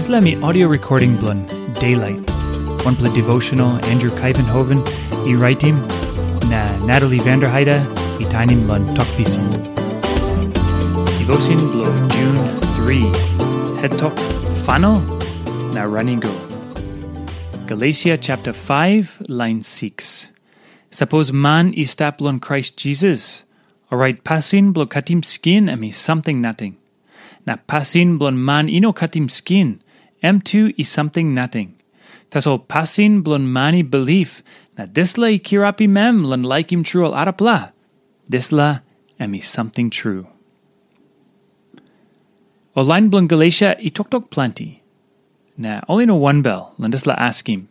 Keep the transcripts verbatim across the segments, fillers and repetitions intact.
Dispela mi audio recording bilong Daylight, wanpela devotional Andrew Kaivenhoven i raitim, na Natalie Vanderheide i tainim long Tok Pisin. Devotion bilong June three, het tok Fano na Running Go. Galesia chapter five, line six. Sapos man i stap long Krais Jisas, orait pasin bilong katim skin em i samting nating. Na pasin bilong man i no katim skin, em tu i samting nating. Tasol pasin bilong man i bilip, na dispela i kirapim em long laikim tru ol arapela, dispela em i samting tru. Ol lain bilong Galesia i toktok planti. Na ol i no wanbel long dispela askim.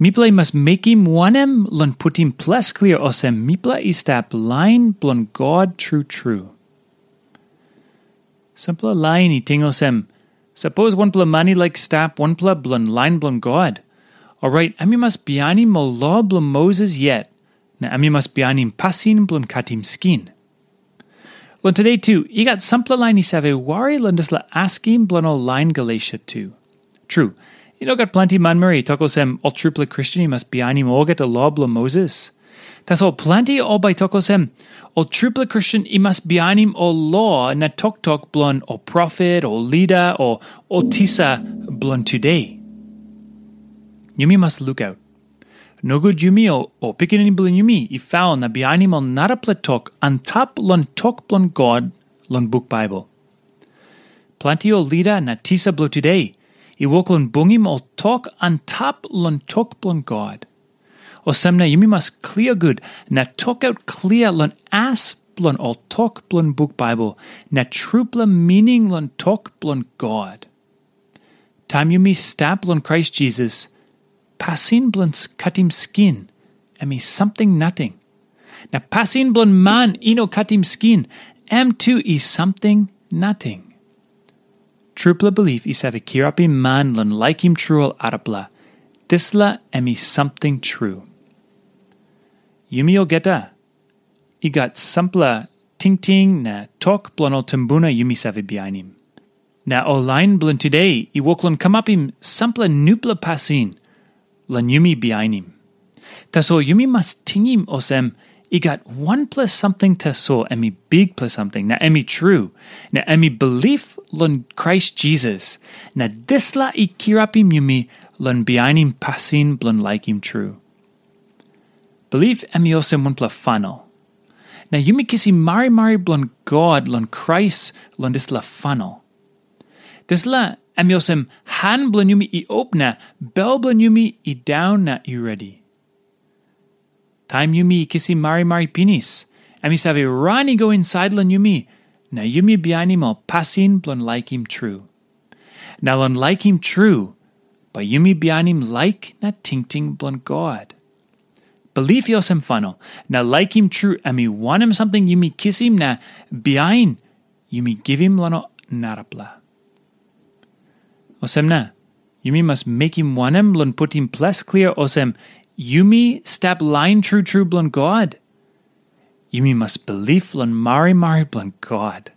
Mipela i mas mekim wanem long putim ples klia olsem mipela i stap lain bilong God tru tru? Sampela lain i ting olsem, sapos wanpela man i laik stap wanpela bilong lain bilong God, orait em i mas bihainim ol lo bilong Moses yet, na em i mas bihainim pasin bilong katim skin. Long today tu, i gat sampela lain i save wari long dispela askim bilong ol lain Galesia tu. Tru, i no gat planti manmeri i tok olsem ol trupela Kristen i mas bihainim olgeta lo bilong Moses. Tasol planti ol bai tok olsem, ol trupela Kristen i mas bihainim ol lo na toktok bilong ol profet, ol lida, o ol tisa bilong today. Yumi mas lukaut. Nogut yumi o, o pikinini bilong yumi i faul na bihainim ol narapela tok antap long tok bilong God long buk Baibel. Planti ol lida na tisa bilong today i wok long bungim ol tok antap long tok bilong God. Olsem na yumi mas klia gut na tokaut klia long as bilong ol tok bilong buk Baibel na trupela mining long tok bilong God. Taim yumi stap long Krais Jisas, pasin bilong katim skin em i samting nating. Na pasin bilong man i no katim skin, em tu i samting nating. Trupela bilip i save kirapim man long laikim tru ol arapela. Dispela em i samting tru. Yumi olgeta i gat sampela tingting na tok bilong ol tumbuna yumi save bihainim. Na ol lain bilong today i wok long kamapim sampela nupela pasin long yumi bihainim. Tasol yumi mas tingim olsem, i gat wanpela samting tasol em i bikpela samting, na em i tru, na em i bilip long Krais Jisas, na dispela i kirapim yumi long bihainim pasin bilong laikim tru. Bilip em i olsem wanpela fanel. Na yumi kisim marimari bilong God long Krais long dispela fanel. Dispela em i olsem han bilong yumi i op na bel bilong yumi i daun na i redi. Taim yumi i kisim marimari pinis, em i save ran i go insait long yumi, na yumi bihainim ol pasin bilong laikim tru. Na long laikim tru, bai yumi bihainim laik na tingting bilong God. Bilip i olsem fanel, na laikim tru em i wanem samting yumi kisim na bihain yumi givim long narapela. Olsem na, yumi mas mekim wanem long putim ples klia olsem yumi stap lain tru tru bilong God? Yumi mas bilip long marimari bilong God,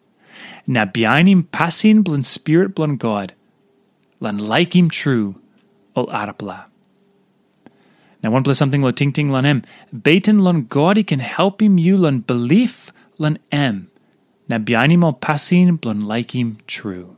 na bihainim pasin bilong Spirit bilong God, long laikim tru ol arapela. Na wanpela samting long tingting long em, beten long God i ken helpim yu long bilip long em, na bihainim ol pasin bilong laikim tru.